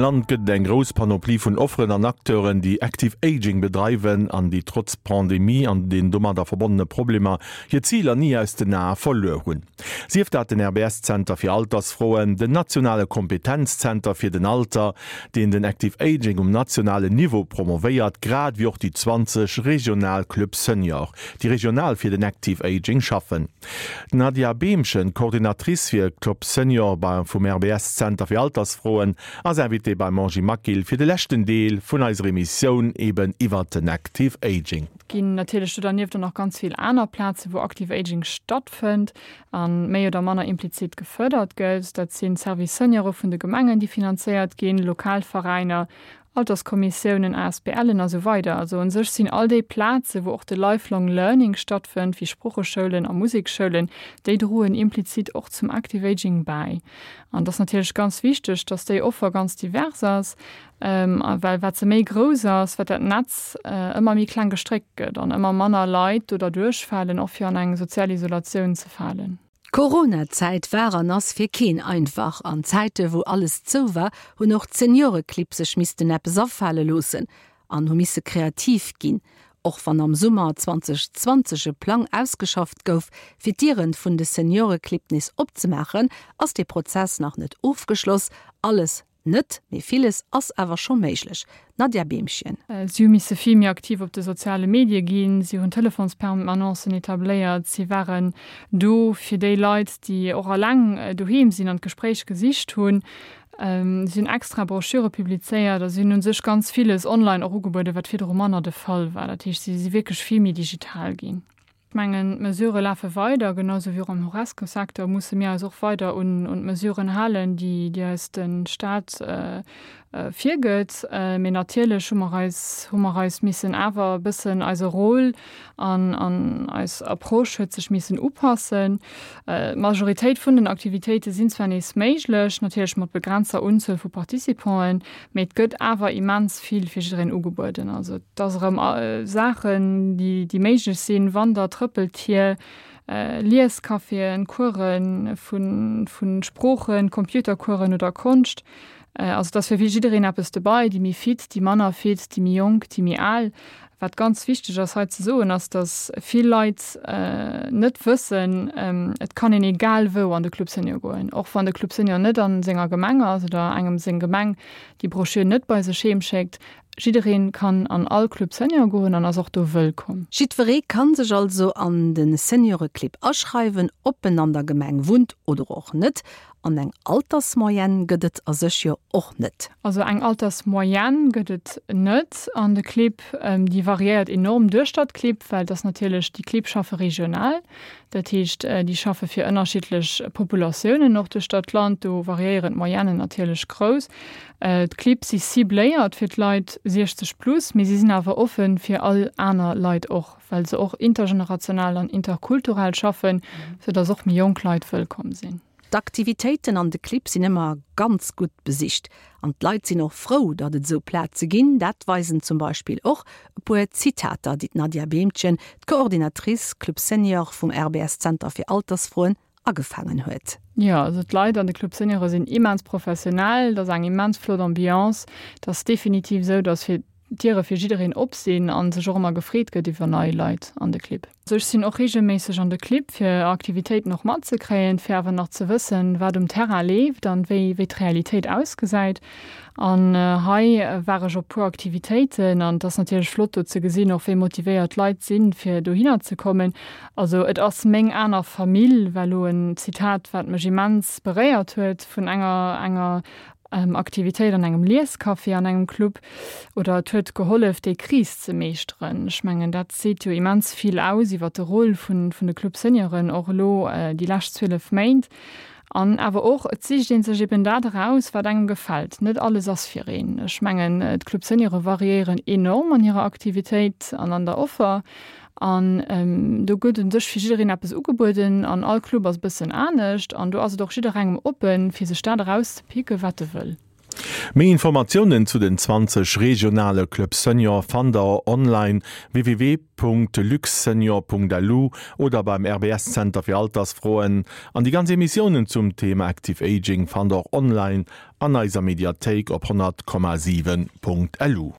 Land gëtt et eng grouss Panoplie vun Offeren an Acteuren, déi Active Aging bedreiwen an déi trotz Pandemie an den domadder verbonnene Problemer hir Ziler ni aus den Ae verluer hunn. Sief dat den RBS-Zenter fir Altersfroen, den nationale Kompetenzzenter fir den Alter, deen den Active Aging um nationalen Niveau promovéiert, grad ewéi och déi 20 regional Clubs Senior, déi regional fir den Active Aging schaffen. D'Nadia Behmchen, Coordinatrice fir Club Senior bei vum RBS Zenter fir Altersfroen, ass Invitée beim Angie Maquil fir de leschten Deel vun eiser Emissioun eben iwwert den Active Aging. Et ginn natierlech do dernieft och nach ganz vill aner Plazen, wou Active Aging stattfënnt a méi oder manner implizit gefërdert gëtt. Dat sinn d'Service Seniore vun de Gemengen, déi finanzéiert ginn, lokal Veräiner, Alterskommissiounen, ASBLen a sou weider. Also un sech sinn all déi Plaze wou och de Lifelong Learning stattfënnt, wéi Sprocheschoulen a Musekschoulen, déi droen implizit och zum Active Aging bäi. An et ass natierlech ganz wichteg, dass déi Offer ganz divers ass, well wat se méi grouss ass, wat dat Netz ëmmer méi kleng gestréckt gëtt an ëmmer manner Leit do derduerch falen, och fir an eng sozial Isolatioun ze falen. D'Corona-Zäit war an ass fir keen einfach. An Zäite wou alles zou war, hunn och d'Senioreclibb sech missten eppes afale loossen an hu misse kreativ ginn. Och wann am Summer 2020 e Plang ausgeschafft gouf, fir d'Dieren vun de Senioreclibb nees opzemaachen, ass dee Prozess nach net ofgeschloss. Alles Net, mee villes ass awer scho méiglech. Nadja Beemchen. Si hu misse vill méi aktiv op de soziale Medie ginn, si hunn Telefonspermanancen etabléiert, si waren do fir déi Leit, déi och eleng doheem sinn an d'Gespréich gesicht hunn. Si hunn extra Broschüre publizéiert a si hunn u sech ganz villes online och ugebueden, wat virdru manner de Fall war. Dat heescht, si si wierklech vill méi digital ginn. Ech mengen, d'Mesurë lafe weider, genau sou wéi och am Horesca-Secteur musse mir eis och weider un d'Mesuren halen, déi eis de Stat virgëtt. Mee natierlech hu mer eis, hu mer eis missen awer e bëssen eise Rôle an eis Approche huet sech missen upassen. D'Majoritéit vun den Aktivitéite sinn zwar nees méiglech, natierlech mat begrenzter Unzuel vu Participanten, Mee et gëtt awer immens vill fir jiddereen ugebueden. Also et ass erëm Saachen, déi, déi méiglech sinn, Wander-, Trëppeltier, Liescaféen, Course vu, vu Sproochen, Computercoursen oder Konscht. Also et ass fir jiddereen eppes dobei, déi méi fit, déi manner fit, déi méi jonk, déi méi al. Wat ganz wichteg ass hei ze soen, ass, datt vill Leit net wëssen, et kann een egal wou an de Club Senior goen, och wann de Club Senior net a senger Gemeng ass oder engem seng Gemeng déi Broschür net bei sech heem schéckt. Jidderee kann an all Club Senior goen an ass och do wëllkomm. Jiddweree kann sech also an de Senioreclub aschreiwen, ob en an der Gemeng wunnt oder och net. An eng Altersmoyenne gëtt et a sech jo och net. Also eng Altersmoyenne gëtt et net an de Clibb. Déi variéiert enorm duerchter d'Clibb, well et ass natierlech, déi Clibb schaffe regional. Dat heescht, déi schaffe fir ënnerschiddlech Populatiounen och duerchter d'Land. Do variéieren d'Moyennen natierlech grouss. D'Clibb si cibléiert fir d'Leit 60 plus, mee si sinn awer offen fir all aner Leit och, well se och intergenerational an interkulturell schaffen, soudass och méi jonk Leit wëllkomm sinn. D'Aktivitéiten an de Clibb sinn ëmmer ganz gutt besicht an d'Leit sinn och frou, datt et esou Plaze ginn. Dat weisen zum Beispill och e puer Zitater, déi d'Nadia Behmchen, d'Coordinatrice Club Senior vum RBS Zenter fir Altersfroen, agefaangen huet. Jo, also d'Leit an de Club Seniore sinn immens professionell, et ass eng immens flott Ambiance. Et ass definitiv esou, datt fir d'Diere fir jiddereen op sinn a sech och ëmmer gefreet gëtt iwwer nei Leit an de Clibb. Ech sinn och reegelméisseg an de Clibb fir Aktivitéiten och matzekréien, fir awer nach ze wëssen, wat um Terrain leeft an wéi wéi d'Realitéit ausgesäit. An hei war ech op puer Aktivitéiten an et ass natierlech flott do ze gesinn och wéi motivéiert d'Leit sinn, fir dohinner ze kommen. Also et ass meng aner Famill war elo en Zitat, wat mech immens beréiert huet vun enger enger Aktivitéit an engem Liescafé, an engem Club oder et huet gehollef déi Kris ze meeschteren. Ech mengen dat seet jo immens vill aus iwwer de Rôle vun vun de Club Senioren och elo déi lescht 12 Méint. An awer och, et sicht ee sech eben dat eraus wat engem gefält. Net alles ass fir een. Ech mengen d'Club Seniore variéieren enorm an hirer Aktivitéit an an der Offer. An do gëtt un sech fir jiddereen eppes ugebueden an all Club ass e bëssen anescht an do ass et och jidderengem oppen, fir sech dat erauszepicken, wat e wëll. Méi Informatiounen zu den 20 regionale Club Senior fannt der online www.luxsenior.lu oder beim RBS Zenter fir Altersfroen. An déi ganz Emissiounen zum Thema Active Aging fannt der och online an eiser Mediathéik op 100,7.lu.